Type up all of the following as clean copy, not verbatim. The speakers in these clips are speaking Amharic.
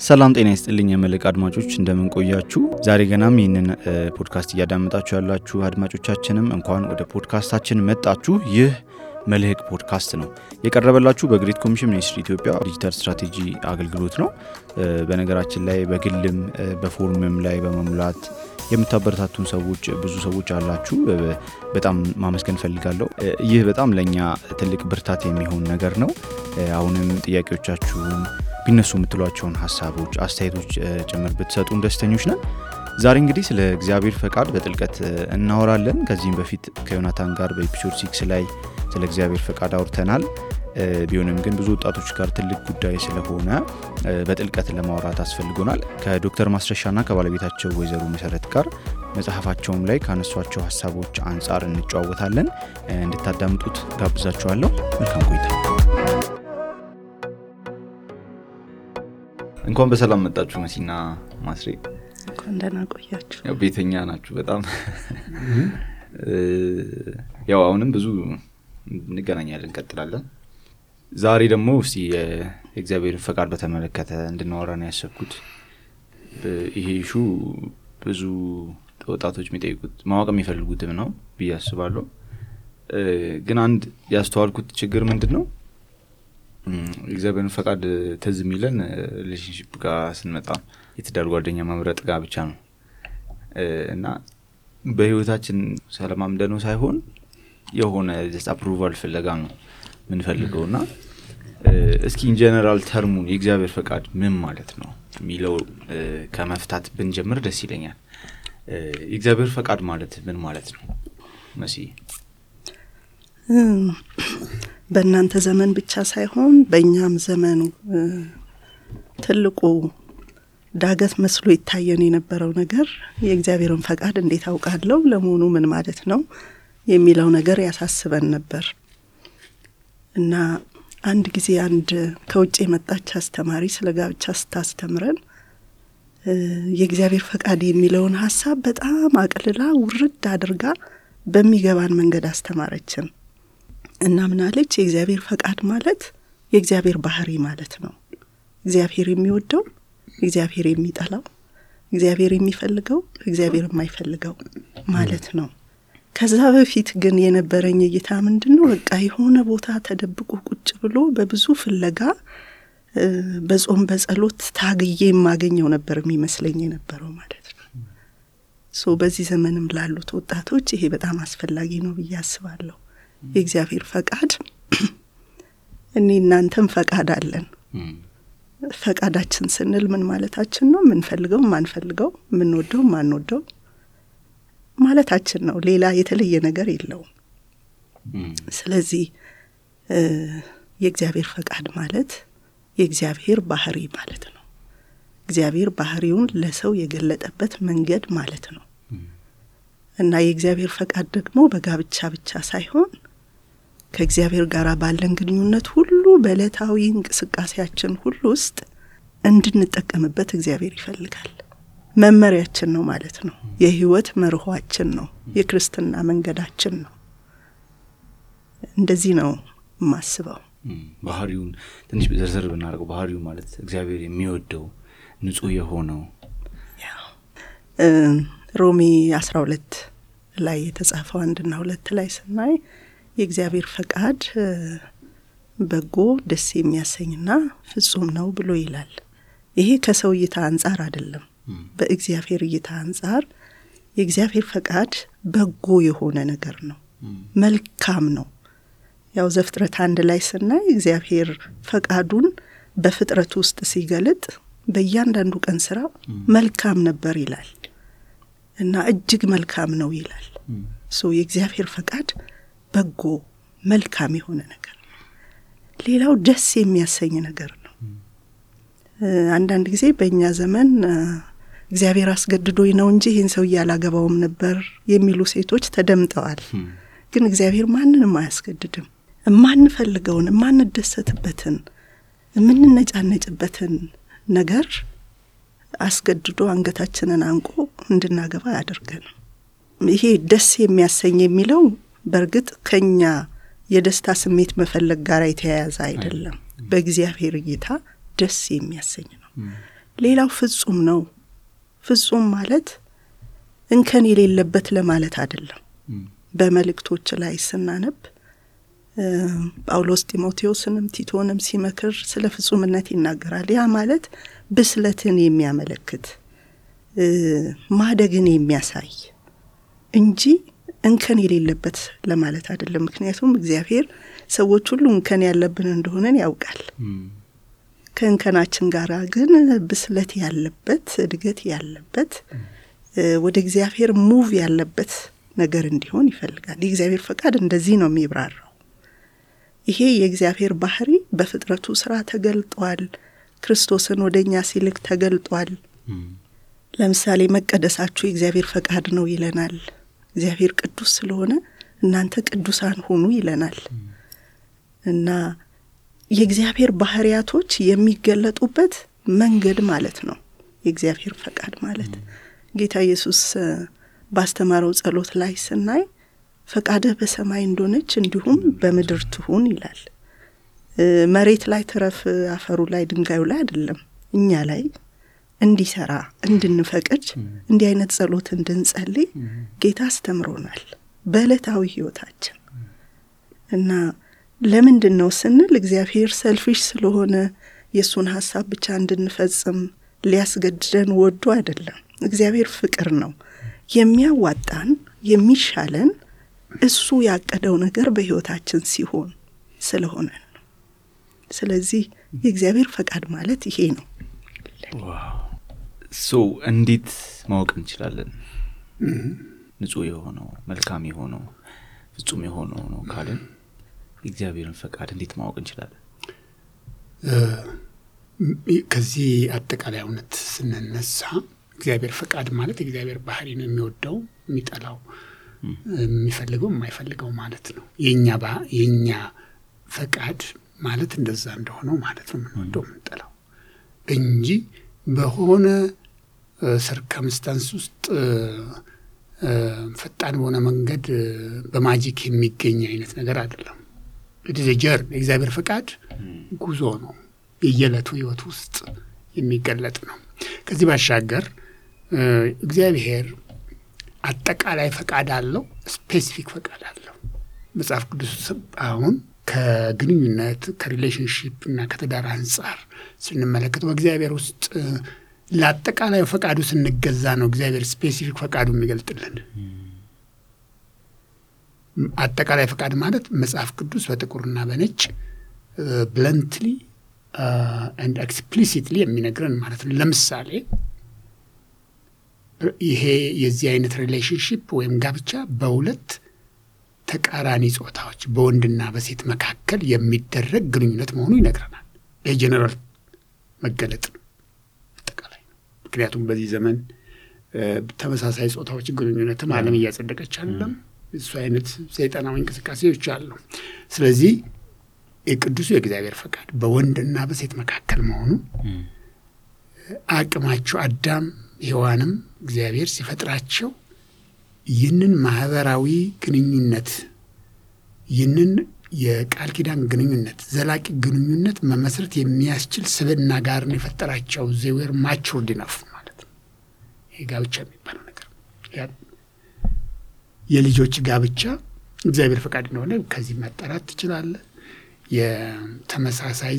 ሰላም ጤና ይስጥልኝ የመልሕቅ አድማጮች እንደምን ቆያችሁ? ዛሬ ገናም ይህንን ፖድካስት እያዳመጣችሁ ያላችሁ አድማጮቻችንም እንኳን ወደ ፖድካስታችን መጣችሁ። ይህ መልሕቅ ፖድካስት ነው። የቀረበላችሁ በግሬት ኮሚሽን ሚኒስትሪ ኢትዮጵያ ዲጂታል ስትራቴጂ አገልግሎት ነው። በነገራችን ላይ በግልም በፎርምም ላይ በመሙላት የምታበረታቱን ሰዎች ብዙ ሰዎች አላችሁ። በጣም ማመስገን ፈልጋለሁ። ይህ በጣም ለኛ ትልቅ ብርታት የሚሆን ነገር ነው። አሁንም ጥያቄዎቻችሁን ቢነሱ የምትሏቸውን ሐሳቦች አስተያየቶች ጭምር ብትሰጡን ደስተኞች ነን። ዛሬ እንግዲህ ስለ እግዚአብሔር ፈቃድ በጥልቀት እናወራለን። ከዚህም በፊት ከዮናታን ጋር በኤፒሶድ 6 ላይ ስለ እግዚአብሔር ፈቃድ አውርተናል። ቢሆንም ግን ብዙ ወጣቶች ጋር ትልቅ ጉዳይ ስለሆነ በጥልቀት ለማውራት አስፈልጎናል። ከዶክተር ማስረሻና ከባለቤታቸው ወይዘሮ መሰረት ጋር መጽሐፋቸውም ላይ ካነሷቸው ሐሳቦች አንጻር እንጨዋወታለን። እንድታዳምጡት ጋብዛችኋለሁ። መልካም ቆይታ። እንኳን በሰላም መጣችሁ መሲና ማስሬ። እንኳን ደህና ቆያችሁ። ያው ቤተኛ ናችሁ በጣም። ያው አሁንም ብዙ እንገናኛለን እንቀጥላለን። ዛሬ ደግሞ እስቲ የእግዚአብሔር ፈቃድ በተመለከተ እንድናወራ ነው ያሰብኩት። ይሄ ኢሹ ብዙ ወጣቶች የሚጠይቁት ማወቅ የሚፈልጉትም ነው ብዬ አስባለሁ። ግን አንድ ያስተዋልኩት ችግር ምንድነው? እግዚአብሔር ፈቃድ ትዝ የሚለን ሪሌሽንሺፕ ጋር ስንመጣ የትዳር ጓደኛ መምረጥ ጋር ብቻ ነው እና በህይወታችን ሰላማምደነው ሳይሆን የሆነ አፕሩቫል ፍለጋ ነው ምንፈልገውና እስኪ ኢን ጀነራል ተርሙን የእግዚአብሔር ፈቃድ ምን ማለት ነው የሚለው ከመፍታት ብንጀምር ደስ ይለኛል። የእግዚአብሔር ፈቃድ ማለት ምን ማለት ነው መሲ? በእናንተ ዘመን ብቻ ሳይሆን በእኛም ዘመን ትልቁ ዳገት መስሎ ይታየን የነበረው ነገር የእግዚአብሔርን ፈቃድ እንዴት አውቃለሁ፣ ለመሆኑ ምን ማለት ነው የሚለው ነገር ያሳስበን ነበር እና አንድ ጊዜ አንድ ከውጭ የመጣች አስተማሪ ስለ ጋብቻ ስታስተምረን የእግዚአብሔር ፈቃድ የሚለውን ሐሳብ በጣም አቅልላ ውርድ አድርጋ በሚገባን መንገድ አስተማረችን እና ምናለች? የእግዚአብሔር ፈቃድ ማለት የእግዚአብሔር ባህሪ ማለት ነው። እግዚአብሔር የሚወደው፣ እግዚአብሔር የሚጠላው፣ እግዚአብሔር የሚፈልገው፣ እግዚአብሔር የማይፈልገው ማለት ነው። ከዛ በፊት ግን የነበረኝ እይታ ምንድነው? በቃ የሆነ ቦታ ተደብቆ ቁጭ ብሎ በብዙ ፍለጋ በጾም በጸሎት ታግዬ የማገኘው ነበር የሚመስለኝ የነበረው ማለት ነው። በዚህ ዘመንም ላሉት ወጣቶች ይሄ በጣም አስፈላጊ ነው ብዬ አስባለሁ። የእግዚአብሔር ፈቃድ እኔ እናንተም ፈቃድ አለን። ፈቃዳችን ስንል ምን ማለታችን ነው? ምንፈልገው ማንፈልገው፣ ምንወደው ማንወደው ማለታችን ነው። ሌላ የተለየ ነገር የለውም። ስለዚህ የእግዚአብሔር ፈቃድ ማለት የእግዚአብሔር ባህሪ ማለት ነው። እግዚአብሔር ባህሪውን ለሰው የገለጠበት መንገድ ማለት ነው እና የእግዚአብሔር ፈቃድ ደግሞ በጋብቻ ብቻ ሳይሆን ከእግዚአብሔር ጋር ባለን ግንኙነት ሁሉ በዕለታዊ እንቅስቃሴያችን ሁሉ ውስጥ እንድንጠቀምበት እግዚአብሔር ይፈልጋል። መመሪያችን ነው ማለት ነው። የህይወት መርሆአችን ነው። የክርስትና መንገዳችን ነው። እንደዚህ ነው ማስበው። ባህሪውን ትንሽ ዘርዘር ብናደርገው ባህሪው ማለት እግዚአብሔር የሚወደው ንጹህ የሆነው ሮሜ 12 ላይ የተጻፈው 1 እና 2 ላይ ስናይ የእግዚአብሔር ፈቃድ በጎ ደስ የሚያሰኝና ፍጹም ነው ብሎ ይላል። ይሄ ከሰው እይታ አንጻር አይደለም። በእግዚአብሔር እይታ አንጻር የእግዚአብሔር ፈቃድ በጎ የሆነ ነገር ነው፣ መልካም ነው። ያው ዘፍጥረት 1 ላይ ስናይ እግዚአብሔር ፈቃዱን በፍጥረት ውስጥ ሲገልጥ በእያንዳንዱ ቀን ስራ መልካም ነበር ይላል እና እጅግ መልካም ነው ይላል። የእግዚአብሔር ፈቃድ በጎ መልካም የሆነ ነገር ነው። ሌላው ደስ የሚያሰኝ ነገር ነው። አንዳንድ ጊዜ በእኛ ዘመን እግዚአብሔር አስገድዶኝ ነው እንጂ ይህን ሰው ያላገባውም ነበር የሚሉ ሴቶች ተደምጠዋል። ግን እግዚአብሔር ማንንም አያስገድድም። ማንፈልገውን ማንደሰትበትን ምንነጫነጭበትን ነገር አስገድዶ አንገታችንን አንቆ እንድናገባ ያደርገን። ይሄ ደስ የሚያሰኝ የሚለው በርግጥ ከኛ የደስታ ስሜት መፈለግ ጋር የተያያዘ አይደለም። በእግዚአብሔር እይታ ደስ የሚያሰኝ ነው። ሌላው ፍጹም ነው። ፍጹም ማለት እንከን የሌለበት ለማለት አይደለም። በመልእክቶች ላይ ስናነብ ጳውሎስ ጢሞቴዎስንም ቲቶንም ሲመክር ስለ ፍጹምነት ይናገራል። ያ ማለት ብስለትን የሚያመለክት ማደግን የሚያሳይ እንጂ እንከን የሌለበት ለማለት አይደለም። ምክንያቱም እግዚአብሔር ሰዎች ሁሉ እንከን ያለብን እንደሆነን ያውቃል። ከእንከናችን ጋር ግን ብስለት ያለበት እድገት ያለበት ወደ እግዚአብሔር ሙቭ ያለበት ነገር እንዲሆን ይፈልጋል። የእግዚአብሔር ፈቃድ እንደዚህ ነው የሚብራራው። ይሄ የእግዚአብሔር ባህሪ በፍጥረቱ ስራ ተገልጧል። ክርስቶስን ወደኛ ሲልክ ተገልጧል። ለምሳሌ መቀደሳችሁ የእግዚአብሔር ፈቃድ ነው ይለናል። እግዚአብሔር ቅዱስ ስለሆነ እናንተ ቅዱሳን ሁኑ ይለናል። እና የእግዚአብሔር ባህሪያቶች የሚገለጡበት መንገድ ማለት ነው የእግዚአብሔር ፈቃድ ማለት። ጌታ ኢየሱስ ባስተማረው ጸሎት ላይ ስናይ ፈቃድህ በሰማይ እንደሆነች እንዲሁም በምድር ትሁን ይላል። መሬት ላይ ተረፍ አፈሩ ላይ ድንጋዩ ላይ አይደለም፣ እኛ ላይ እንዲሰራ እንድንፈቅድ እንዲህ አይነት ጸሎት እንድንጸልይ ጌታ አስተምሮናል በዕለታዊ ህይወታችን። እና ለምንድን ነው ስንል እግዚአብሔር ሰልፊሽ ስለሆነ የሱን ሐሳብ ብቻ እንድንፈጽም ሊያስገድደን ወዶ አይደለም። እግዚአብሔር ፍቅር ነው። የሚያዋጣን የሚሻለን እሱ ያቀደው ነገር በህይወታችን ሲሆን ስለሆነ ነው። ስለዚህ የእግዚአብሔር ፈቃድ ማለት ይሄ ነው። እንዴት ማወቅ እንችላለን? ንጹህ የሆነው መልካም የሆነው ፍጹም የሆነው ነው ካለን የእግዚአብሔርን ፈቃድ እንዴት ማወቅ እንችላለን? ከዚህ አጠቃላይ እውነት ስንነሳ እግዚአብሔር ፈቃድ ማለት የእግዚአብሔር ባህሪ ነው። የሚወደው የሚጠላው የሚፈልገው የማይፈልገው ማለት ነው። የኛ ፈቃድ ማለት እንደዛ እንደሆነው ማለት ነው። የምንወደው የምንጠላው እንጂ በሆነ ሰርከምስታንስ ውስጥ ፈጣን በሆነ መንገድ በማጂክ የሚገኝ አይነት ነገር አይደለም። ዲዛይር የእግዚአብሔር ፈቃድ ጉዞ ነው። የየለቱ ህይወት ውስጥ የሚገለጥ ነው። ከዚህ ባሻገር እግዚአብሔር አጠቃላይ ፈቃድ አለው፣ ስፔሲፊክ ፈቃድ አለው። መጽሐፍ ቅዱስ አሁን ከግንኙነት ከሪሌሽንሺፕ እና ከትዳር አንጻር ስንመለከት በእግዚአብሔር ውስጥ ለአጠቃላይ ፈቃዱ ስንገዛ ነው እግዚአብሔር ስፔሲፊክ ፈቃዱ የሚገልጥልን። አጠቃላይ ፈቃድ ማለት መጽሐፍ ቅዱስ በጥቁርና በነጭ ብለንትሊ and explicitly የሚነግረን ማለት ነው። ለምሳሌ ይሄ የዚህ አይነት ሪሌሽንሺፕ ወይም ጋብቻ በሁለት ተቃራኒ ጾታዎች በወንድና በሴት መካከል የሚደረግ ግንኙነት መሆኑ ይነግረናል። የጀነራል መገለጥ አጠቃላይ ነው። ምክንያቱም በዚህ ዘመን ተመሳሳይ ጾታዎች ግንኙነትም ዓለም እያጸደቀች አይደለም። እሱ አይነት ሰይጣናዊ እንቅስቃሴዎች አሉ። ስለዚህ የቅዱሱ የእግዚአብሔር ፈቃድ በወንድና በሴት መካከል መሆኑ አቅማቸው አዳም ሔዋንም እግዚአብሔር ሲፈጥራቸው ይህንን ማህበራዊ ግንኙነት ይህንን የቃል ኪዳን ግንኙነት ዘላቂ ግንኙነት መመስረት የሚያስችል ስብዕና ጋር ነው የፈጠራቸው። they were matured enough ማለት ነው። ይሄ ጋብቻ የሚባለው ነገር የልጆች ጋብቻ እግዚአብሔር ፈቃድ እንደሆነ ከዚህ መጠራት ትችላለህ። የተመሳሳይ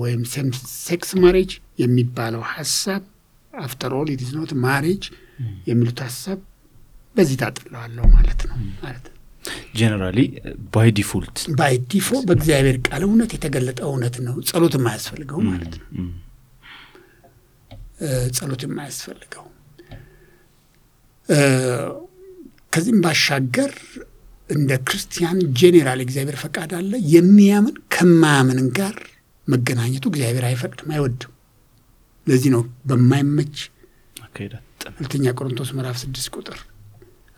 ወይም ሴም ሴክስ ማሬጅ የሚባለው ሐሳብ after all it is not marriage የሚሉት ሐሳብ በዚህ ታጥለዋለሁ ማለት ነው። ማለት ጀነራሊ ባይ ዲፎልት በእግዚአብሔር ቃል እውነት የተገለጠ እውነት ነው። ጸሎት የማያስፈልገው ማለት ነው። ጸሎት የማያስፈልገው ከዚህም ባሻገር እንደ ክርስቲያን ጄኔራል እግዚአብሔር ፈቃድ አለ። የሚያምን ከማያምን ጋር መገናኘቱ እግዚአብሔር አይፈቅድም፣ አይወድም። ለዚህ ነው በማይመች ሁለተኛ ቆሮንቶስ ምዕራፍ 6 ቁጥር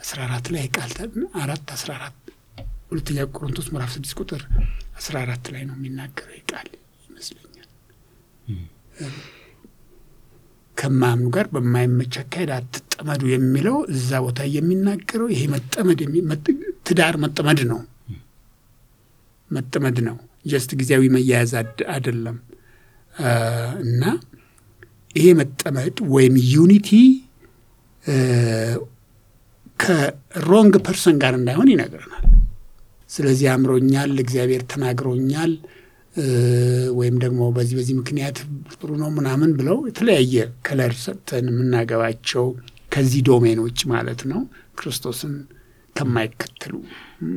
14 ላይ ቃል 4:14 ሁለተኛ ቆሮንቶስ ምዕራፍ 6 ቁጥር 14 ላይ ነው የሚናገረው ቃል ይመስለኛል። ከማያምኑ ጋር በማይመች አካሄድ አትጠመዱ የሚለው እዛ ቦታ የሚናገረው ይሄ መጠመድ ትዳር መጠመድ ነው። መጠመድ ነው። ጀስት ጊዜያዊ መያያዝ አይደለም። እና ይሄ መጠመድ ወይም ዩኒቲ ከሮንግ ፐርሰን ጋር እንዳይሆን ይነግረናል። ስለዚህ አምሮኛል፣ እግዚአብሔር ተናግሮኛል ወይም ደግሞ በዚህ ምክንያት ጥሩ ነው ምናምን ብለው የተለያየ ከለር ሰጥተን የምናገባቸው ከዚህ ዶሜን ውጭ ማለት ነው ክርስቶስን ከማይከተሉ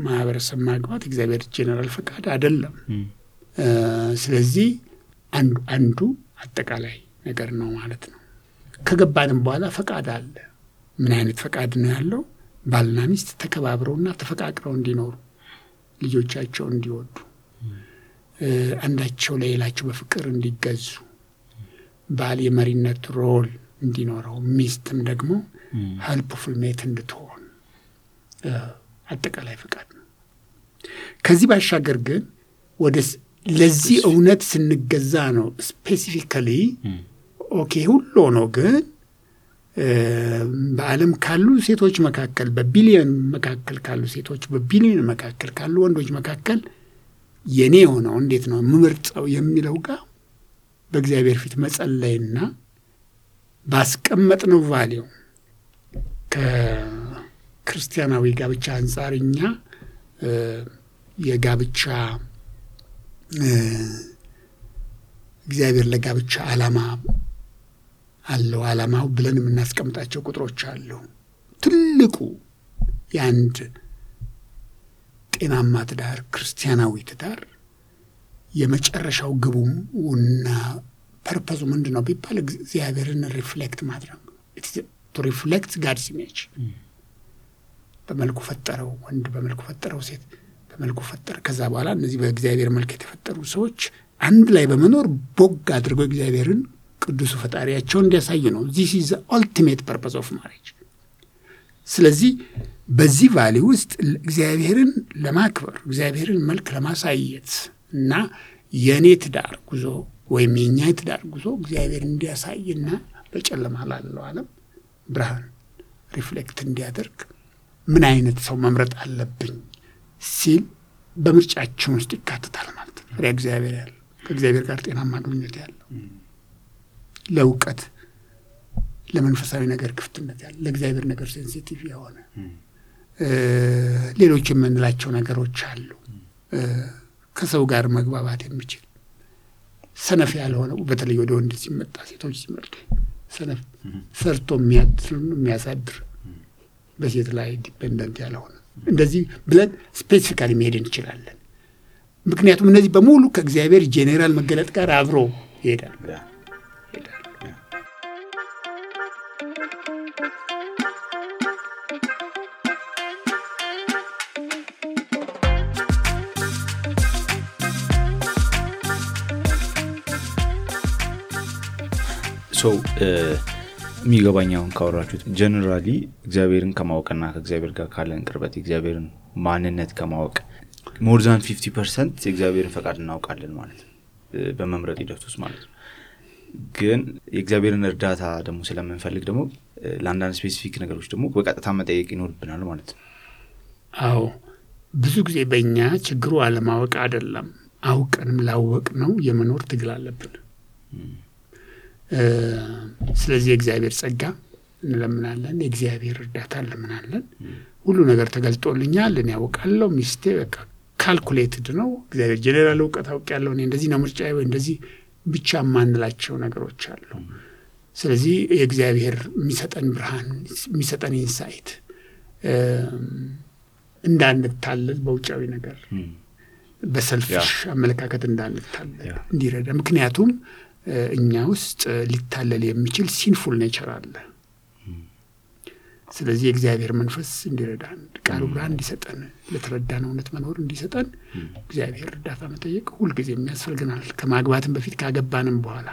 ማህበረሰብ ማግባት እግዚአብሔር ጄኔራል ፈቃድ አይደለም። ስለዚህ አንዱ አጠቃላይ ነገር ነው ማለት ነው። ከገባንም በኋላ ፈቃድ አለ። ምን አይነት ፈቃድ ነው ያለው? ባልና ሚስት ተከባብረውና ተፈቃቅረው እንዲኖሩ፣ ልጆቻቸው እንዲወዱ፣ አንዳቸው ለሌላቸው በፍቅር እንዲገዙ፣ ባል የመሪነት ሮል እንዲኖረው፣ ሚስትም ደግሞ ሄልፕፉል ሜት እንድትሆን አጠቃላይ ፈቃድ ነው። ከዚህ ባሻገር ግን ለዚህ እውነት ስንገዛ ነው ስፔሲፊካሊ ኦኬ ሁሉ ነው። ግን በዓለም ካሉ ሴቶች መካከል በቢሊዮን መካከል ካሉ ሴቶች በቢሊዮን መካከል ካሉ ወንዶች መካከል የኔ ሆነው እንዴት ነው ምርጫው የሚለው ጋር በእግዚአብሔር ፊት መጸለይና ባስቀመጥነው ቫልዩ ከክርስቲያናዊ ጋብቻ አንጻርኛ የጋብቻ እግዚአብሔር ለጋብቻ ዓላማ አለው። ዓላማው ብለን የምናስቀምጣቸው ቁጥሮች አሉ። ትልቁ የአንድ ጤናማ ትዳር ክርስቲያናዊ ትዳር የመጨረሻው ግቡና ፐርፐዙ ምንድን ነው ቢባል እግዚአብሔርን ሪፍሌክት ማድረግ ቱ ሪፍሌክት ጋድስ ኢሜጅ። በመልኩ ፈጠረው ወንድ፣ በመልኩ ፈጠረው ሴት፣ በመልኩ ፈጠረ። ከዛ በኋላ እነዚህ በእግዚአብሔር መልክ የተፈጠሩ ሰዎች አንድ ላይ በመኖር ቦግ አድርገው እግዚአብሔርን ቅዱሱ ፈጣሪያቸውን እንዲያሳዩ ነው። this is the ultimate purpose of marriage። ስለዚህ በዚህ ቫልዩ ውስጥ እግዚአብሔርን ለማክበር እግዚአብሔርን መልክ ለማሳየት እና የኔ ትዳር ጉዞ ወይም የኛ ትዳር ጉዞ እግዚአብሔር እንዲያሳይና በጨለማ ላለው ዓለም ብርሃን ሪፍሌክት እንዲያደርግ ምን አይነት ሰው መምረጥ አለብኝ ሲል በምርጫችን ውስጥ ይካተታል ማለት ነው። ፍሬ እግዚአብሔር ያለው ከእግዚአብሔር ጋር ጤናማ ግንኙነት ያለው ለእውቀት ለመንፈሳዊ ነገር ክፍትነት ያለው ለእግዚአብሔር ነገር ሴንሲቲቭ የሆነ ሌሎች የምንላቸው ነገሮች አሉ። ከሰው ጋር መግባባት የሚችል ሰነፍ ያልሆነ በተለይ ወደ ወንድ ሲመጣ ሴቶች ሲመርጡ ሰነፍ ሰርቶ የሚያሳድር በሴት ላይ ዲፔንደንት ያልሆነ እንደዚህ ብለን ስፔሲፊካሊ መሄድ እንችላለን። ምክንያቱም እነዚህ በሙሉ ከእግዚአብሔር ጄኔራል መገለጥ ጋር አብሮ ይሄዳል። ሶ የሚገባኛውን ካወራችሁት ጀነራሊ እግዚአብሔርን ከማወቅና ከእግዚአብሔር ጋር ካለን ቅርበት እግዚአብሔርን ማንነት ከማወቅ ሞር ዛን 50% የእግዚአብሔርን ፈቃድ እናውቃለን ማለት ነው በመምረጥ ሂደት ውስጥ ማለት ነው። ግን የእግዚአብሔርን እርዳታ ደግሞ ስለምንፈልግ ደግሞ ለአንዳንድ ስፔሲፊክ ነገሮች ደግሞ በቀጥታ መጠየቅ ይኖርብናል ማለት ነው። አዎ ብዙ ጊዜ በእኛ ችግሩ አለማወቅ አይደለም፣ አውቀንም ላወቅ ነው የመኖር ትግል አለብን። ስለዚህ የእግዚአብሔር ጸጋ እንለምናለን፣ የእግዚአብሔር እርዳታ እንለምናለን። ሁሉ ነገር ተገልጦልኛል፣ እኔ ያውቃለሁ፣ ሚስቴ በቃ ካልኩሌትድ ነው፣ እግዚአብሔር ጄኔራል እውቀት አውቃለሁ፣ እኔ እንደዚህ ነው ምርጫዬ ወይ እንደዚህ ብቻ ማንላቸው ነገሮች አሉ። ስለዚህ የእግዚአብሔር የሚሰጠን ብርሃን የሚሰጠን ኢንሳይት እንዳንታለል በውጫዊ ነገር በሰልፍሽ አመለካከት እንዳንታለል እንዲረዳ። ምክንያቱም እኛ ውስጥ ሊታለል የሚችል ሲንፉል ኔቸር አለ። ስለዚህ የእግዚአብሔር መንፈስ እንዲረዳን ቃሉ ብርሃን እንዲሰጠን ለተረዳነው እውነት መኖር እንዲሰጠን እግዚአብሔር እርዳታ መጠየቅ ሁልጊዜ የሚያስፈልገናል። ከማግባትም በፊት ካገባንም በኋላ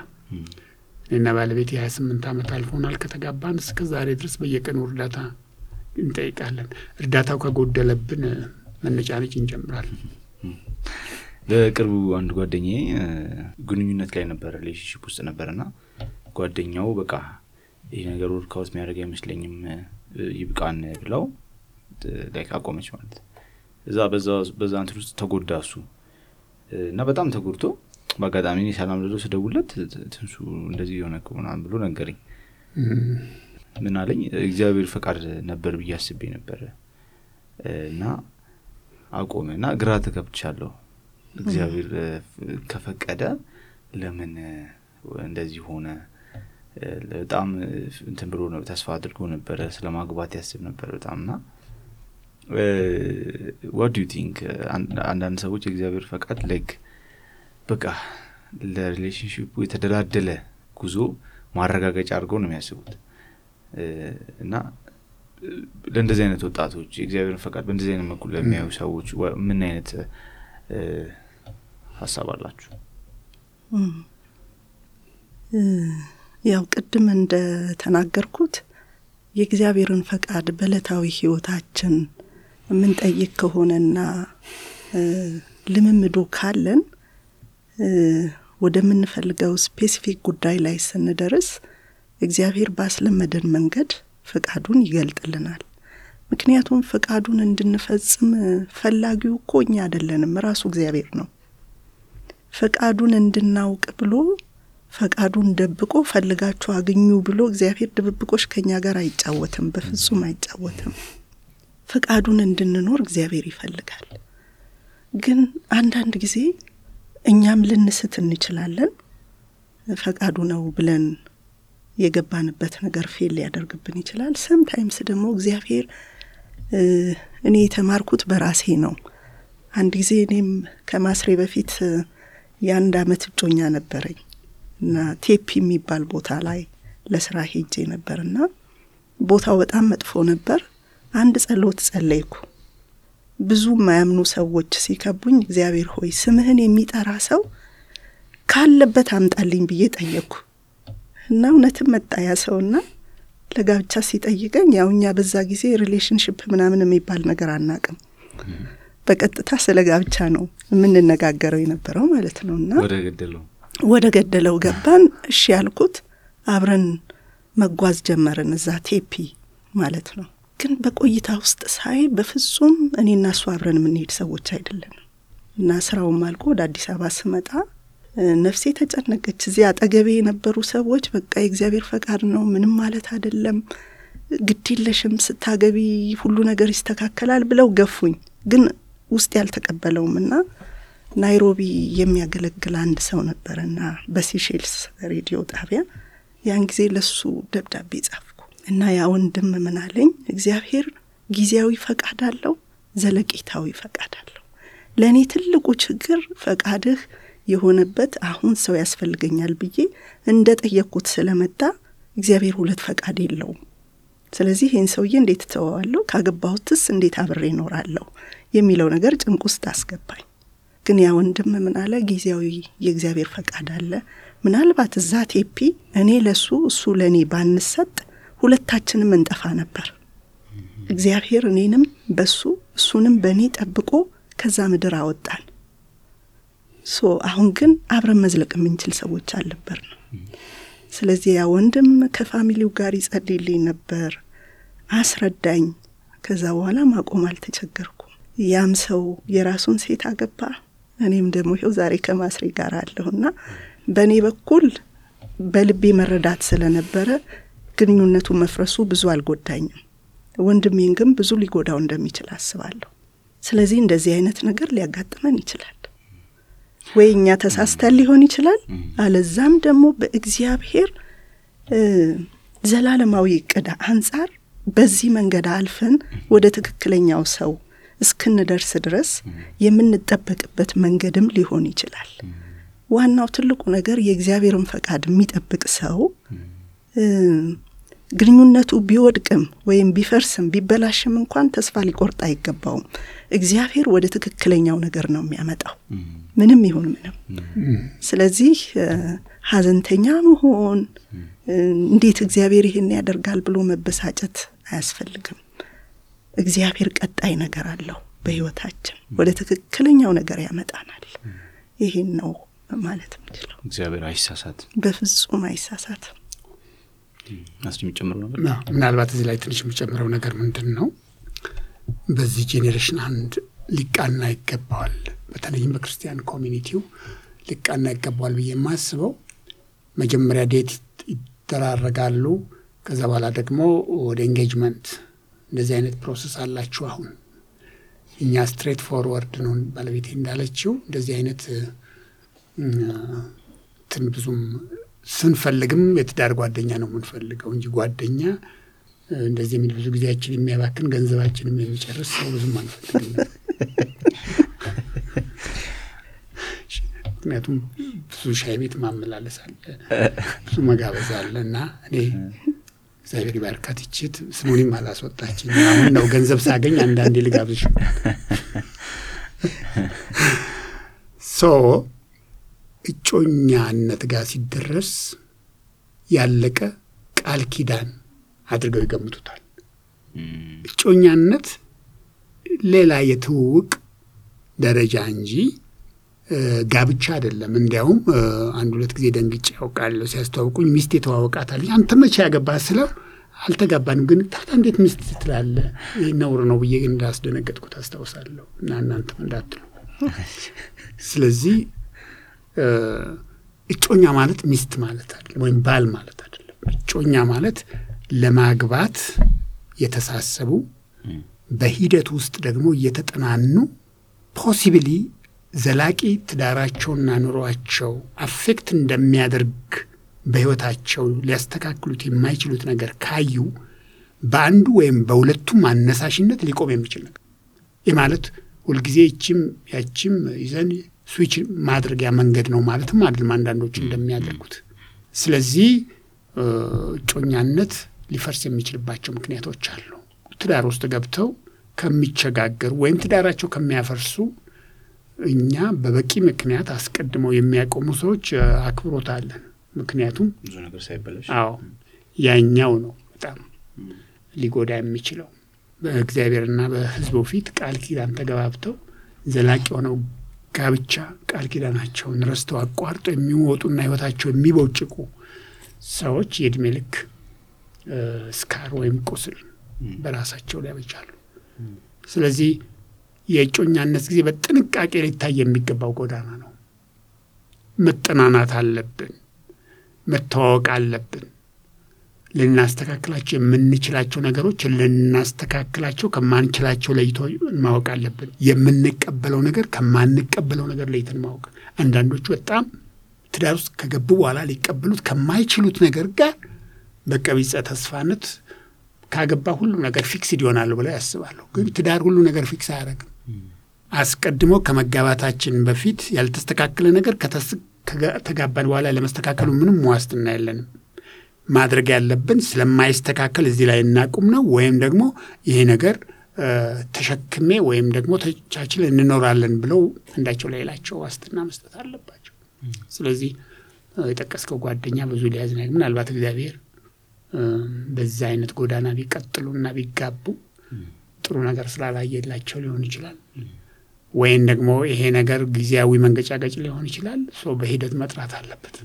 እኔና ባለቤቴ 28 ዓመት አልፎናል ከተጋባን እስከ ዛሬ ድረስ በየቀኑ እርዳታ እንጠይቃለን። እርዳታው ከጎደለብን መነጫነጭ እንጀምራለን። በቅርቡ አንድ ጓደኛዬ ግንኙነት ላይ ነበር፣ ሪሌሽንሺፕ ውስጥ ነበርና ጓደኛው በቃ ይሄ ነገር ወርክአውት የሚያደርግ አይመስለኝም ይብቃን ብለው ላይክ አቆመች ማለት። በዛ እንትን ውስጥ ተጎዳ እሱ። እና በጣም ተጎድቶ በአጋጣሚ እኔ ሰላም ልለው ስደውልለት ትንሱ እንደዚህ የሆነው ምናምን ብሎ ነገረኝ። ምን አለኝ እግዚአብሔር ፈቃድ ነበር ብዬ አስቤ ነበር እና አቆመና ግራ ተገብቻለሁ። እግዚአብሔር ከፈቀደ ለምን እንደዚህ ሆነ? በጣም እንትን ብሎ ነው ተስፋ አድርጎ ነበር ስለማግባት ያስብ ነበር በጣምና what do you think አንዳንድ ሰዎች እግዚአብሔር ፈቃድ like በቃ ለሪሌሽንሺፑ የተደላደለ ጉዞ ማረጋገጫ አድርገው ነው የሚያስቡት እና ለእንደዚህ አይነት ወጣቶች እግዚአብሔር ፈቃድ በእንደዚህ አይነት መልኩ ለሚያዩ ሰዎች ምን አይነት ሐሳብ አላችሁ? ያው ቅድም እንደ ተናገርኩት የእግዚአብሔርን ፈቃድ በዕለታዊ ህይወታችን ምን ጠይቅ ከሆነና ልምምዱ ካለን ወደምንፈልገው ስፔሲፊክ ጉዳይ ላይ ስንደርስ እግዚአብሔር ባስለመደን መንገድ ፈቃዱን ይገልጥልናል። ምክንያቱም ፈቃዱን እንድንፈጽም ፈላጊው እኮ እኛ አይደለንም፣ ራሱ እግዚአብሔር ነው። ፈቃዱን እንድናውቅ ብሎ ፈቃዱን ደብቆ ፈልጋችሁ አግኙ ብሎ እግዚአብሔር ድብብቆሽ ከኛ ጋር አይጫወትም፣ በፍጹም አይጫወትም። ፈቃዱን እንድንኖር እግዚአብሔር ይፈልጋል። ግን አንዳንድ ጊዜ እኛም ልንስት እንችላለን። ፈቃዱ ነው ብለን የገባንበት ነገር ፌል ሊያደርግብን ይችላል። ሰምታይምስ ደግሞ እግዚአብሔር እኔ የተማርኩት በራሴ ነው። አንድ ጊዜ እኔም ከማስሬ በፊት የአንድ አመት እጮኛ ነበረኝ እና ቴፒ የሚባል ቦታ ላይ ለስራ ሄጄ ነበርና ቦታው በጣም መጥፎ ነበር። አንድ ጸሎት ጸለይኩ። ብዙ ማያምኑ ሰዎች ሲከቡኝ እግዚአብሔር ሆይ ስምህን የሚጠራ ሰው ካለበት አምጣልኝ ብዬ ጠየቅኩ እና እውነትም መጣ ያ ሰውና ለጋብቻ ሲጠይቀኝ ያው እኛ በዛ ጊዜ ሪሌሽንሺፕ ምናምን የሚባል ነገር አናቅም። በቀጥታ ስለ ጋብቻ ነው የምንነጋገረው የነበረው ማለት ነውና ወደ ገደለው ገባን። እሺ ያልኩት አብረን መጓዝ ጀመርን እዛ ቴፒ ማለት ነው። ግን በቆይታ ውስጥ ሳይ በፍጹም እኔና እሱ አብረን የምንሄድ ሰዎች አይደለንም እና ስራውም አልቆ ወደ አዲስ አበባ ስመጣ ነፍሴ ተጨነቀች። እዚያ አጠገቤ የነበሩ ሰዎች በቃ የእግዚአብሔር ፈቃድ ነው ምንም ማለት አይደለም፣ ግድየለሽም ስታገቢ ሁሉ ነገር ይስተካከላል ብለው ገፉኝ። ግን ውስጥ ያልተቀበለውምና ናይሮቢ የሚያገለግል አንድ ሰው ነበርና በሲሼልስ ሬዲዮ ጣቢያ ያን ጊዜ ለሱ ደብዳቤ ጻፍኩ እና ያ ወንድም ምን አለኝ፣ እግዚአብሔር ጊዜያዊ ፈቃድ አለው፣ ዘለቄታዊ ፈቃድ አለው። ለኔ ትልቁ ችግር ፈቃድህ የሆነበት አሁን ሰው ያስፈልገኛል ብዬ እንደጠየቅኩት ስለመጣ እግዚአብሔር ሁለት ፈቃድ የለውም። ስለዚህ ይህን ሰውዬ እንዴት ተዋዋለሁ፣ ካገባሁትስ እንዴት አብሬ እኖራለሁ የሚለው ነገር ጭንቅ ውስጥ አስገባኝ። ግን ያ ወንድም ምን አለ፣ ጊዜያዊ የእግዚአብሔር ፈቃድ አለ። ምናልባት እዛ ቴፒ እኔ ለሱ እሱ ለኔ ባንሰጥ ሁለታችንም እንጠፋ ነበር። እግዚአብሔር እኔንም በሱ እሱንም በኔ ጠብቆ ከዛ ምድር አወጣን። አሁን ግን አብረን መዝለቅ የምንችል ሰዎች አልነበርን። ስለዚህ ያ ወንድም ከፋሚሊው ጋር ይጸልይልኝ ነበር፣ አስረዳኝ። ከዛ በኋላ ማቆም አልተቸገርኩም። ያም ሰው የራሱን ሴት አገባ፣ እኔም ደግሞ ይኸው ዛሬ ከማስሬ ጋር አለሁና በእኔ በኩል በልቤ መረዳት ስለነበረ ግንኙነቱ መፍረሱ ብዙ አልጎዳኝም። ወንድሜን ግን ብዙ ሊጎዳው እንደሚችል አስባለሁ። ስለዚህ እንደዚህ አይነት ነገር ሊያጋጥመን ይችላል። ወይ እኛ ተሳስተን ሊሆን ይችላል፣ አለዛም ደግሞ በእግዚአብሔር ዘላለማዊ ዕቅድ አንጻር በዚህ መንገድ አልፈን ወደ ትክክለኛው ሰው እስክንደርስ ድረስ የምንጠበቅበት መንገድም ሊሆን ይችላል። ዋናው ትልቁ ነገር የእግዚአብሔርን ፈቃድ የሚጠብቅ ሰው ግንኙነቱ ቢወድቅም ወይም ቢፈርስም ቢበላሽም እንኳን ተስፋ ሊቆርጥ አይገባውም። እግዚአብሔር ወደ ትክክለኛው ነገር ነው የሚያመጣው ምንም ይሁን ምንም። ስለዚህ ሀዘንተኛ መሆን እንዴት እግዚአብሔር ይሄን ያደርጋል ብሎ መበሳጨት አያስፈልግም። እግዚአብሔር ቀጣይ ነገር አለው በህይወታችን፣ ወደ ትክክለኛው ነገር ያመጣናል። ይሄን ነው ማለት ምንችለው። እግዚአብሔር አይሳሳትም፣ በፍጹም አይሳሳትም። የሚጨምረው ነገር ምናልባት እዚህ ላይ ትንሽ የሚጨምረው ነገር ምንድን ነው፣ በዚህ ጄኔሬሽን አንድ ሊቃና ይገባዋል። በተለይም በክርስቲያን ኮሚኒቲው ሊቃና ይገባዋል ብዬ የማስበው መጀመሪያ ዴት ይደራረጋሉ። ከዛ በኋላ ደግሞ ወደ ኤንጌጅመንት እንደዚህ አይነት ፕሮሰስ አላችሁ። አሁን እኛ ስትሬት ፎርወርድ ነው ባለቤቴ እንዳለችው እንደዚህ አይነት ብዙም ስንፈልግም የትዳር ጓደኛ ነው የምንፈልገው እንጂ ጓደኛ እንደዚህ የሚል ብዙ ጊዜያችን የሚያባክን ገንዘባችንም የሚጨርስ ሰው ብዙም አንፈልግም። ምክንያቱም ብዙ ሻይ ቤት ማመላለስ አለ፣ ብዙ መጋበዝ አለ እና እኔ እግዚአብሔር ይባርካት ይችት ስሙንም አላስወጣችኝ። አሁን ነው ገንዘብ ሳገኝ አንዳንዴ ልጋብዝሽ። እጮኛነት ጋር ሲደረስ ያለቀ ቃል ኪዳን አድርገው ይገምቱታል። እጮኛነት ሌላ የትውውቅ ደረጃ እንጂ ጋብቻ አይደለም። እንዲያውም አንድ ሁለት ጊዜ ደንግጬ ያውቃለሁ። ሲያስተዋውቁኝ ሚስት የተዋወቃታለች። አንተ መቼ ያገባህ ስለው አልተጋባንም፣ ግን ታዲያ እንዴት ሚስት ትላለህ? ይህ ነውር ነው ብዬ ግን እንዳስደነገጥኩት አስታውሳለሁ። እና እናንተም እንዳትሉ። ስለዚህ እጮኛ ማለት ሚስት ማለት አይደለም፣ ወይም ባል ማለት አይደለም። እጮኛ ማለት ለማግባት የተሳሰቡ በሂደት ውስጥ ደግሞ እየተጠናኑ ፖሲብሊ ዘላቂ ትዳራቸውና ኑሯቸው አፌክት እንደሚያደርግ በህይወታቸው ሊያስተካክሉት የማይችሉት ነገር ካዩ በአንዱ ወይም በሁለቱም አነሳሽነት ሊቆም የሚችል ነገር። ይህ ማለት ሁልጊዜ ያችም ይዘን ስዊች ማድረጊያ መንገድ ነው ማለትም አይደለም አንዳንዶች እንደሚያደርጉት። ስለዚህ እጮኛነት ሊፈርስ የሚችልባቸው ምክንያቶች አሉ። ትዳር ውስጥ ገብተው ከሚቸጋገሩ ወይም ትዳራቸው ከሚያፈርሱ እኛ በበቂ ምክንያት አስቀድመው የሚያቆሙ ሰዎች አክብሮት አለን። ምክንያቱም ብዙ ነገር ሳይበላሽ ያኛው ነው በጣም ሊጎዳ የሚችለው። በእግዚአብሔርና በሕዝቡ ፊት ቃል ኪዳን ተገባብተው ዘላቂ ሆነው ጋብቻ ቃል ኪዳናቸውን ረስተው አቋርጠው የሚወጡና ህይወታቸው የሚቦጭቁ ሰዎች የእድሜ ልክ ስካር ወይም ቁስል በራሳቸው ላይ ያበጃሉ። ስለዚህ የእጮኛነት ጊዜ በጥንቃቄ ሊታይ የሚገባው ጎዳና ነው። መጠናናት አለብን፣ መተዋወቅ አለብን። ልናስተካክላቸው የምንችላቸው ነገሮች ልናስተካክላቸው ከማንችላቸው ለይቶ ማወቅ አለብን። የምንቀበለው ነገር ከማንቀበለው ነገር ለይተን ማወቅ። አንዳንዶቹ በጣም ትዳር ውስጥ ከገቡ በኋላ ሊቀበሉት ከማይችሉት ነገር ጋር በቀቢጸ ተስፋነት ካገባ ሁሉ ነገር ፊክስድ ይሆናል ብለው ያስባሉ። ግን ትዳር ሁሉ ነገር ፊክስ አያደርግም። አስቀድሞ ከመጋባታችን በፊት ያልተስተካከለ ነገር ከተጋባን በኋላ ለመስተካከሉ ምንም ዋስትና የለንም። ማድረግ ያለብን ስለማይስተካከል እዚህ ላይ እናቁም ነው፣ ወይም ደግሞ ይሄ ነገር ተሸክሜ ወይም ደግሞ ተቻችል እንኖራለን ብለው እንዳቸው ሌላቸው ዋስትና መስጠት አለባቸው። ስለዚህ የጠቀስከው ጓደኛ ብዙ ሊያዝና ምናልባት እግዚአብሔር በዛ አይነት ጎዳና ቢቀጥሉና ቢጋቡ ጥሩ ነገር ስላላየላቸው ሊሆን ይችላል። ወይም ደግሞ ይሄ ነገር ጊዜያዊ መንገጫገጭ ሊሆን ይችላል። ሰው በሂደት መጥራት አለበት።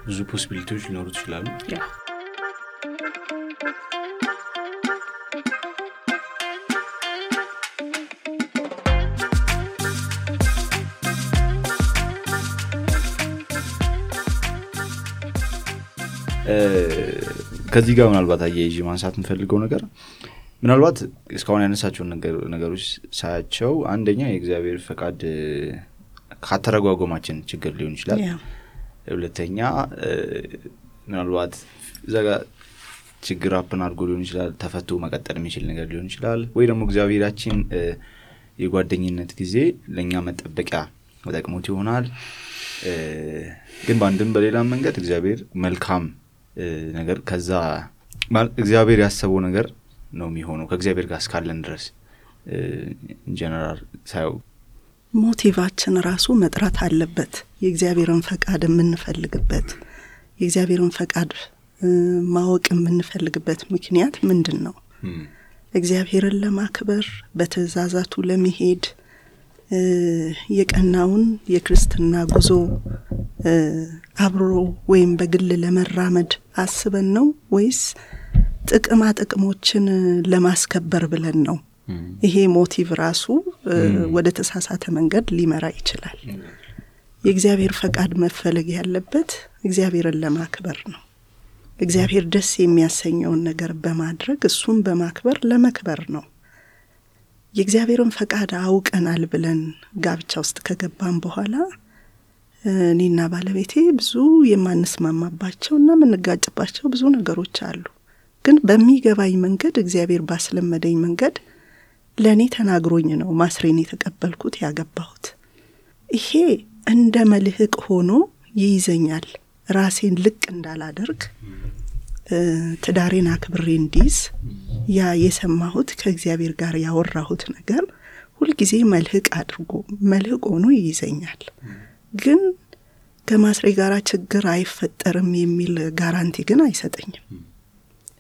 ብዙ ፖሲቢሊቲዎች ሊኖሩ ይችላሉ። ከዚህ ጋር ምናልባት አያይዤ ማንሳት የምፈልገው ነገር ምናልባት እስካሁን ያነሳቸውን ነገሮች ሳያቸው አንደኛ የእግዚአብሔር ፈቃድ ካተረጓጎማችን ችግር ሊሆን ይችላል። ሁለተኛ ምናልባት ዘጋ ችግር አፕን አድርጎ ሊሆን ይችላል፣ ተፈቶ መቀጠል የሚችል ነገር ሊሆን ይችላል። ወይ ደግሞ እግዚአብሔራችን የጓደኝነት ጊዜ ለእኛ መጠበቂያ ተጠቅሞት ይሆናል። ግን በአንድም በሌላም መንገድ እግዚአብሔር መልካም ነገር ከዛ እግዚአብሔር ያሰበው ነገር ነው የሚሆነው ከእግዚአብሔር ጋር እስካለን ድረስ ኢንጀነራል ሳይው ሞቲቫችን ራሱ መጥራት አለበት። የእግዚአብሔርን ፈቃድ የምንፈልግበት የእግዚአብሔርን ፈቃድ ማወቅ የምንፈልግበት ምክንያት ምንድን ነው? እግዚአብሔርን ለማክበር በትእዛዛቱ ለመሄድ የቀናውን የክርስትና ጉዞ አብሮ ወይም በግል ለመራመድ አስበን ነው ወይስ ጥቅማ ጥቅሞችን ለማስከበር ብለን ነው ይሄ ሞቲቭ ራሱ ወደ ተሳሳተ መንገድ ሊመራ ይችላል። የእግዚአብሔር ፈቃድ መፈለግ ያለበት እግዚአብሔርን ለማክበር ነው። እግዚአብሔር ደስ የሚያሰኘውን ነገር በማድረግ እሱን በማክበር ለመክበር ነው። የእግዚአብሔርን ፈቃድ አውቀናል ብለን ጋብቻ ውስጥ ከገባን በኋላ እኔና ባለቤቴ ብዙ የማንስማማባቸውና የምንጋጭባቸው ብዙ ነገሮች አሉ። ግን በሚገባኝ መንገድ እግዚአብሔር ባስለመደኝ መንገድ ለእኔ ተናግሮኝ ነው ማስሬን የተቀበልኩት ያገባሁት። ይሄ እንደ መልህቅ ሆኖ ይይዘኛል። ራሴን ልቅ እንዳላደርግ ትዳሬን አክብሬ እንዲዝ ያ የሰማሁት ከእግዚአብሔር ጋር ያወራሁት ነገር ሁልጊዜ መልህቅ ሆኖ ይይዘኛል። ግን ከማስሬ ጋር ችግር አይፈጠርም የሚል ጋራንቲ ግን አይሰጠኝም።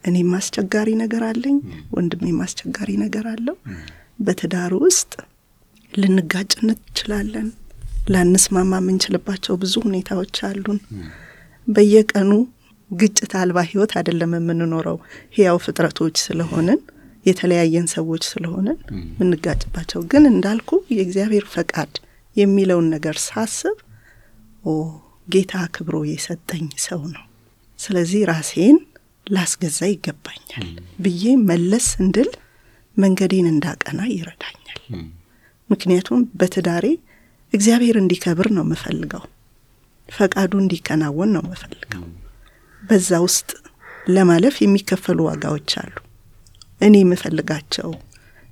እኔም አስቸጋሪ ነገር አለኝ፣ ወንድሜም አስቸጋሪ ነገር አለው። በትዳር ውስጥ ልንጋጭ እንችላለን፣ ላንስማማ የምንችልባቸው ብዙ ሁኔታዎች አሉን። በየቀኑ ግጭት አልባ ህይወት አይደለም የምንኖረው። ሕያው ፍጥረቶች ስለሆነን የተለያየን ሰዎች ስለሆነን የምንጋጭባቸው ግን እንዳልኩ የእግዚአብሔር ፈቃድ የሚለውን ነገር ሳስብ ጌታ አክብሮ የሰጠኝ ሰው ነው፣ ስለዚህ ራሴን ላስገዛ ይገባኛል ብዬ መለስ እንድል መንገዴን እንዳቀና ይረዳኛል። ምክንያቱም በትዳሬ እግዚአብሔር እንዲከብር ነው የምፈልገው፣ ፈቃዱ እንዲከናወን ነው የምፈልገው። በዛ ውስጥ ለማለፍ የሚከፈሉ ዋጋዎች አሉ። እኔ የምፈልጋቸው፣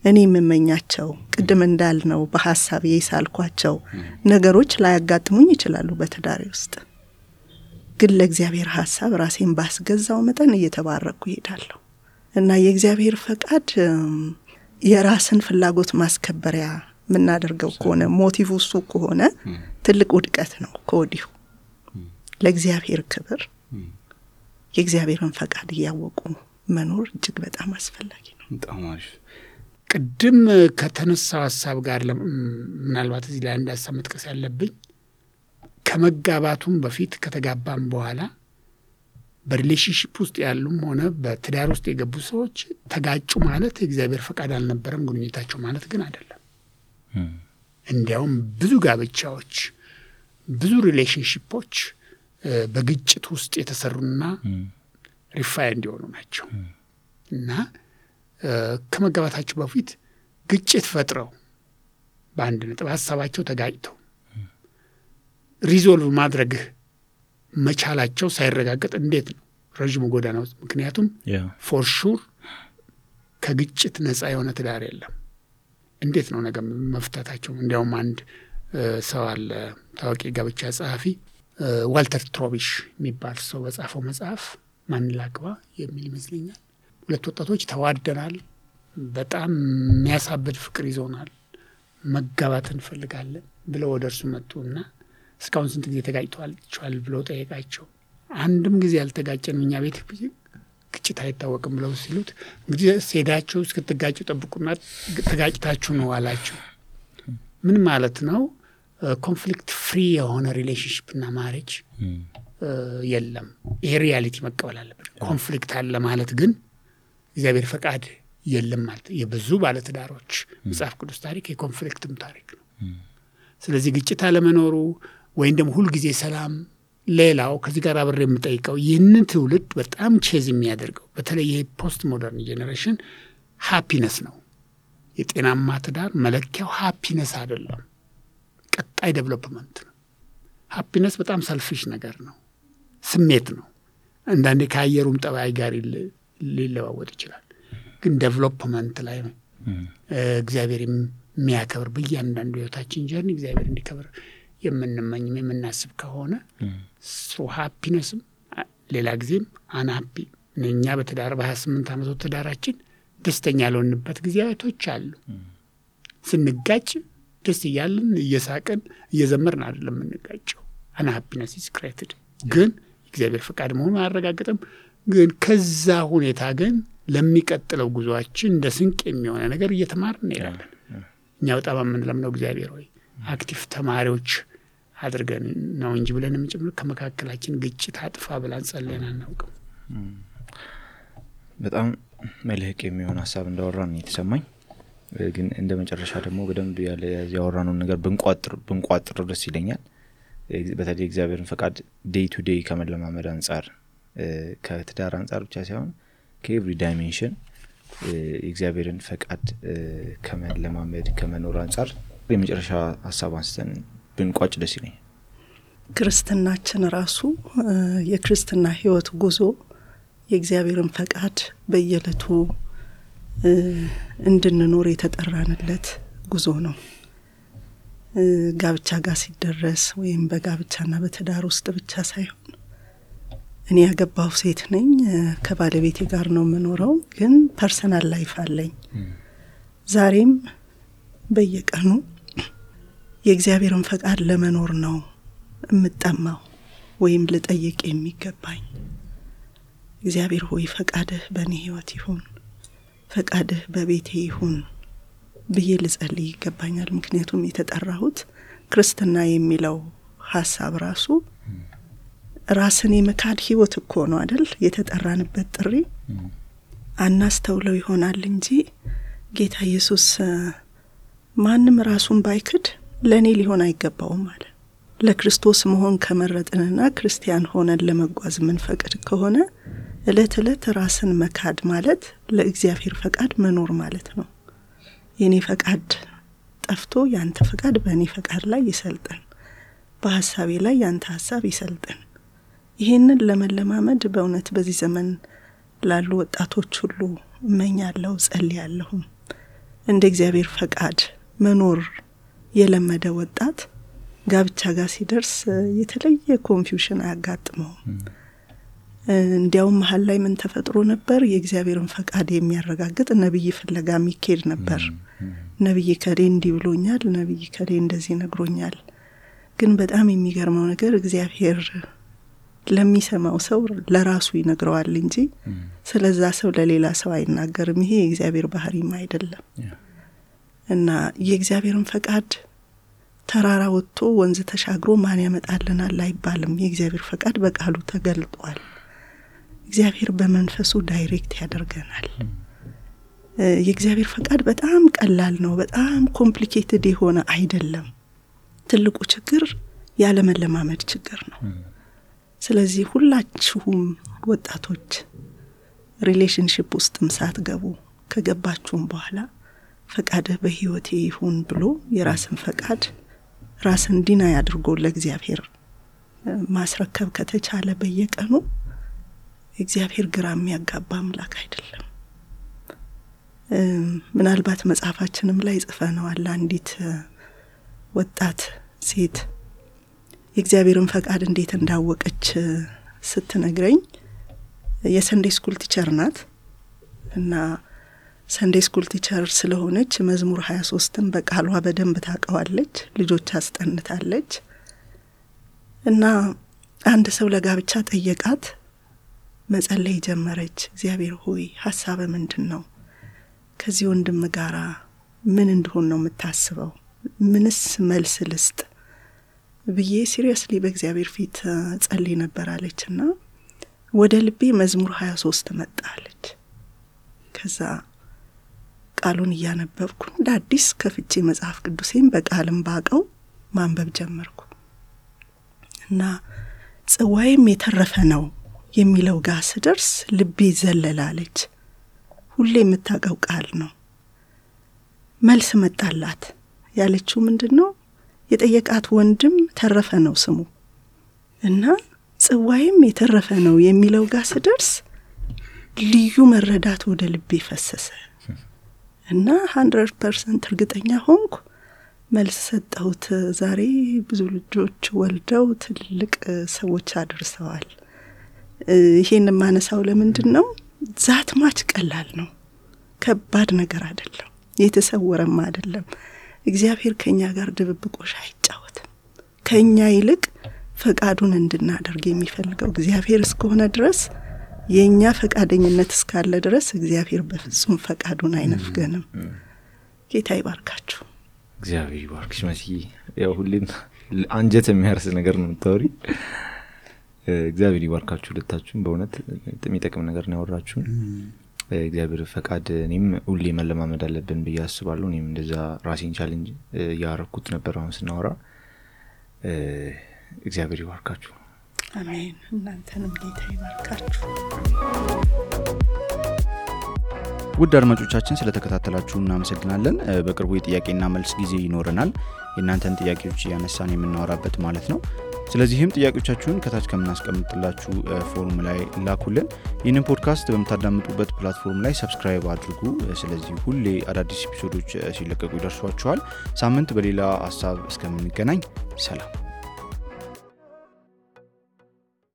እኔ የምመኛቸው፣ ቅድም እንዳልነው በሐሳብ የሳልኳቸው ነገሮች ላያጋጥሙኝ ይችላሉ በትዳሬ ውስጥ። ግን ለእግዚአብሔር ሐሳብ ራሴን ባስገዛው መጠን እየተባረኩ ይሄዳለሁ እና የእግዚአብሔር ፈቃድ የራስን ፍላጎት ማስከበሪያ የምናደርገው ከሆነ ሞቲቭ እሱ ከሆነ ትልቅ ውድቀት ነው ከወዲሁ። ለእግዚአብሔር ክብር የእግዚአብሔርን ፈቃድ እያወቁ መኖር እጅግ በጣም አስፈላጊ ነው። በጣም አሪፍ። ቅድም ከተነሳው ሐሳብ ጋር ምናልባት እዚህ ላይ አንድ ሐሳብ መጥቀስ ያለብኝ ከመጋባቱም በፊት ከተጋባም በኋላ በሪሌሽንሺፕ ውስጥ ያሉም ሆነ በትዳር ውስጥ የገቡ ሰዎች ተጋጩ ማለት የእግዚአብሔር ፈቃድ አልነበረም ግንኙነታቸው ማለት ግን አይደለም። እንዲያውም ብዙ ጋብቻዎች፣ ብዙ ሪሌሽንሺፖች በግጭት ውስጥ የተሰሩና ሪፋይ እንዲሆኑ ናቸው እና ከመጋባታቸው በፊት ግጭት ፈጥረው በአንድ ነጥብ ሀሳባቸው ተጋጭተው ሪዞልቭ ማድረግ መቻላቸው ሳይረጋገጥ እንዴት ነው ረጅም ጎዳና ውስጥ? ምክንያቱም ፎር ሹር ከግጭት ነፃ የሆነ ትዳር የለም። እንዴት ነው ነገር መፍታታቸው? እንዲያውም አንድ ሰው አለ ታዋቂ ጋብቻ ጸሐፊ ዋልተር ትሮቢሽ የሚባል ሰው በጻፈው መጽሐፍ ማን ላግባ የሚል ይመስለኛል። ሁለት ወጣቶች ተዋደናል፣ በጣም የሚያሳብድ ፍቅር ይዞናል፣ መጋባት እንፈልጋለን ብለው ወደ እርሱ መጡና እስካሁን ስንት ጊዜ ተጋጭተዋል ብለው ጠየቃቸው። አንድም ጊዜ ያልተጋጨን እኛ ቤት ግጭት አይታወቅም ብለው ሲሉት እንግዲህ ሴዳቸው እስክትጋጩ ጠብቁና ተጋጭታችሁ ነው አላቸው። ምን ማለት ነው? ኮንፍሊክት ፍሪ የሆነ ሪሌሽንሽፕና ማሬጅ የለም። ይሄ ሪያሊቲ መቀበል አለበት። ኮንፍሊክት አለ ማለት ግን እግዚአብሔር ፈቃድ የለም ማለት። የብዙ ባለትዳሮች መጽሐፍ ቅዱስ ታሪክ የኮንፍሊክትም ታሪክ ነው። ስለዚህ ግጭት አለመኖሩ ወይም ደግሞ ሁልጊዜ ሰላም። ሌላው ከዚህ ጋር አብሬ የምጠይቀው ይህንን ትውልድ በጣም ቼዝ የሚያደርገው በተለይ ይሄ ፖስት ሞደርን ጄኔሬሽን ሃፒነስ ነው። የጤናማ ትዳር መለኪያው ሃፒነስ አይደለም፣ ቀጣይ ዴቨሎፕመንት ነው። ሃፒነስ በጣም ሰልፊሽ ነገር ነው፣ ስሜት ነው። አንዳንዴ ከአየሩም ጠባይ ጋር ሊለዋወጥ ይችላል። ግን ዴቨሎፕመንት ላይ እግዚአብሔር የሚያከብር በእያንዳንዱ ህይወታችን ጀርኒ እግዚአብሔር እንዲከብር የምንመኝም የምናስብ ከሆነ ሶ ሃፒነስም ሌላ ጊዜም አንሃፒ እኛ በትዳር በ28 ዓመት ትዳራችን ደስተኛ ያልሆንበት ጊዜያቶች አሉ። ስንጋጭ ደስ እያልን እየሳቅን እየዘመርን አይደለም የምንጋጨው። አንሃፒነስ ኢዝ ክሬትድ ግን እግዚአብሔር ፈቃድ መሆኑን አያረጋግጥም። ግን ከዛ ሁኔታ ግን ለሚቀጥለው ጉዟችን እንደ ስንቅ የሚሆነ ነገር እየተማርን እንሄዳለን። እኛ በጣም የምንለምነው እግዚአብሔር ሆይ አክቲቭ ተማሪዎች አድርገን ነው እንጂ ብለን የምንጨምር ከመካከላችን ግጭት አጥፋ ብለን ጸልየን አናውቅም። በጣም መልህቅ የሚሆን ሀሳብ እንዳወራን የተሰማኝ ግን እንደ መጨረሻ ደግሞ በደንብ ያለ ያወራነው ነገር ብንቋጥር ደስ ይለኛል። በተለይ እግዚአብሔርን ፈቃድ ዴይ ቱ ዴይ ከመለማመድ አንፃር ከትዳር አንፃር ብቻ ሳይሆን ከኤቭሪ ዳይሜንሽን እግዚአብሔርን ፈቃድ ከመለማመድ ከመኖር አንፃር የመጨረሻ ሐሳብ አንስተን ብንቋጭ ደስ ይለኛል። ክርስትናችን ራሱ የክርስትና ህይወት ጉዞ የእግዚአብሔርን ፈቃድ በየለቱ እንድንኖር የተጠራንለት ጉዞ ነው። ጋብቻ ጋር ሲደረስ ወይም በጋብቻና በትዳር ውስጥ ብቻ ሳይሆን እኔ ያገባው ሴት ነኝ፣ ከባለቤቴ ጋር ነው የምኖረው፣ ግን ፐርሰናል ላይፍ አለኝ። ዛሬም በየቀኑ የእግዚአብሔርን ፈቃድ ለመኖር ነው እምጠማው ወይም ልጠይቅ የሚገባኝ። እግዚአብሔር ሆይ ፈቃድህ በእኔ ህይወት ይሁን፣ ፈቃድህ በቤቴ ይሁን ብዬ ልጸልይ ይገባኛል። ምክንያቱም የተጠራሁት ክርስትና የሚለው ሐሳብ ራሱ ራስን የመካድ ህይወት እኮ ነው አይደል? የተጠራንበት ጥሪ አናስተውለው ይሆናል እንጂ ጌታ ኢየሱስ ማንም ራሱን ባይክድ ለኔ ሊሆን አይገባውም ማለት። ለክርስቶስ መሆን ከመረጥንና ክርስቲያን ሆነን ለመጓዝ ምን ፈቅድ ከሆነ እለት እለት ራስን መካድ ማለት ለእግዚአብሔር ፈቃድ መኖር ማለት ነው። የኔ ፈቃድ ጠፍቶ ያንተ ፈቃድ በእኔ ፈቃድ ላይ ይሰልጥን፣ በሐሳቤ ላይ ያንተ ሐሳብ ይሰልጥን። ይሄንን ለመለማመድ በእውነት በዚህ ዘመን ላሉ ወጣቶች ሁሉ እመኛለሁ፣ ጸልያለሁ። እንደ እግዚአብሔር ፈቃድ መኖር የለመደ ወጣት ጋብቻ ጋር ሲደርስ የተለየ ኮንፊውዥን አያጋጥመው። እንዲያውም መሀል ላይ ምን ተፈጥሮ ነበር? የእግዚአብሔርን ፈቃድ የሚያረጋግጥ ነብይ ፍለጋ የሚኬድ ነበር። ነብይ ከሌ እንዲህ ብሎኛል፣ ነብይ ከሌ እንደዚህ ነግሮኛል። ግን በጣም የሚገርመው ነገር እግዚአብሔር ለሚሰማው ሰው ለራሱ ይነግረዋል እንጂ ስለዛ ሰው ለሌላ ሰው አይናገርም። ይሄ የእግዚአብሔር ባህሪም አይደለም። እና የእግዚአብሔርን ፈቃድ ተራራ ወጥቶ ወንዝ ተሻግሮ ማን ያመጣልናል አይባልም። የእግዚአብሔር ፈቃድ በቃሉ ተገልጧል። እግዚአብሔር በመንፈሱ ዳይሬክት ያደርገናል። የእግዚአብሔር ፈቃድ በጣም ቀላል ነው። በጣም ኮምፕሊኬትድ የሆነ አይደለም። ትልቁ ችግር ያለ መለማመድ ችግር ነው። ስለዚህ ሁላችሁም ወጣቶች ሪሌሽንሺፕ ውስጥም ሳትገቡ ከገባችሁም በኋላ ፈቃድህ በህይወቴ ይሁን ብሎ የራስን ፈቃድ ራስን ዲና ያድርጎ ለእግዚአብሔር ማስረከብ ከተቻለ በየቀኑ እግዚአብሔር ግራ የሚያጋባ አምላክ አይደለም። ምናልባት መጽሐፋችንም ላይ ጽፈነዋል። አንዲት ወጣት ሴት የእግዚአብሔርን ፈቃድ እንዴት እንዳወቀች ስትነግረኝ የሰንዴይ ስኩል ቲቸር ናት እና ሰንዴይ ስኩል ቲቸር ስለሆነች መዝሙር 23ን በቃሏ በደንብ ታውቀዋለች። ልጆች አስጠንታለች እና አንድ ሰው ለጋብቻ ጠየቃት። መጸለይ ጀመረች። እግዚአብሔር ሆይ ሐሳብ ምንድነው? ከዚህ ወንድም ጋራ ምን እንደሆነ ነው የምታስበው? ምንስ መልስ ልስጥ ብዬ ሲሪየስሊ በእግዚአብሔር ፊት ጸልይ ነበር አለችና ወደ ልቤ መዝሙር 23 መጣለች። ከዛ ቃሉን እያነበብኩ እንደ አዲስ ከፍቼ መጽሐፍ ቅዱሴን በቃልም ባቀው ማንበብ ጀመርኩ እና ጽዋይም የተረፈ ነው የሚለው ጋር ስደርስ ልቤ ዘለላለች። ሁሌ የምታውቀው ቃል ነው። መልስ መጣላት። ያለችው ምንድነው? የጠየቃት ወንድም ተረፈ ነው ስሙ እና ጽዋይም የተረፈ ነው የሚለው ጋር ስደርስ ልዩ መረዳት ወደ ልቤ ፈሰሰ እና 100% እርግጠኛ ሆንኩ። መልስ ሰጠሁት። ዛሬ ብዙ ልጆች ወልደው ትልቅ ሰዎች አድርሰዋል። ይሄን ማነሳው ለምንድነው? ዛት ማች ቀላል ነው። ከባድ ነገር አይደለም። የተሰወረም አይደለም። እግዚአብሔር ከኛ ጋር ድብብቆሽ አይጫወትም። ከኛ ይልቅ ፈቃዱን እንድናደርግ የሚፈልገው እግዚአብሔር እስከሆነ ድረስ የኛ ፈቃደኝነት እስካለ ድረስ እግዚአብሔር በፍጹም ፈቃዱን አይነፍገንም። ጌታ ይባርካችሁ። እግዚአብሔር ይባርክሽ መሲ። ያው ሁሌም አንጀት የሚያርስ ነገር ነው የምታወሪ። እግዚአብሔር ይባርካችሁ ሁለታችሁም። በእውነት የሚጠቅም ነገር ነው ያወራችሁን። በእግዚአብሔር ፈቃድ እኔም ሁሌ መለማመድ አለብን ብዬ አስባለሁ። እኔም እንደዛ ራሴን ቻሌንጅ ያረኩት ነበር አሁን ስናወራ። እግዚአብሔር ይባርካችሁ። አሜን። እናንተንም ጌታ ይባርካችሁ። ውድ አድማጮቻችን ስለተከታተላችሁ እናመሰግናለን። በቅርቡ የጥያቄና መልስ ጊዜ ይኖረናል፣ የእናንተን ጥያቄዎች ያነሳን የምናወራበት ማለት ነው። ስለዚህም ጥያቄዎቻችሁን ከታች ከምናስቀምጥላችሁ ፎርም ላይ ላኩልን። ይህንን ፖድካስት በምታዳምጡበት ፕላትፎርም ላይ ሰብስክራይብ አድርጉ። ስለዚህ ሁሌ አዳዲስ ኤፒሶዶች ሲለቀቁ ይደርሷችኋል። ሳምንት በሌላ ሀሳብ እስከምንገናኝ ሰላም።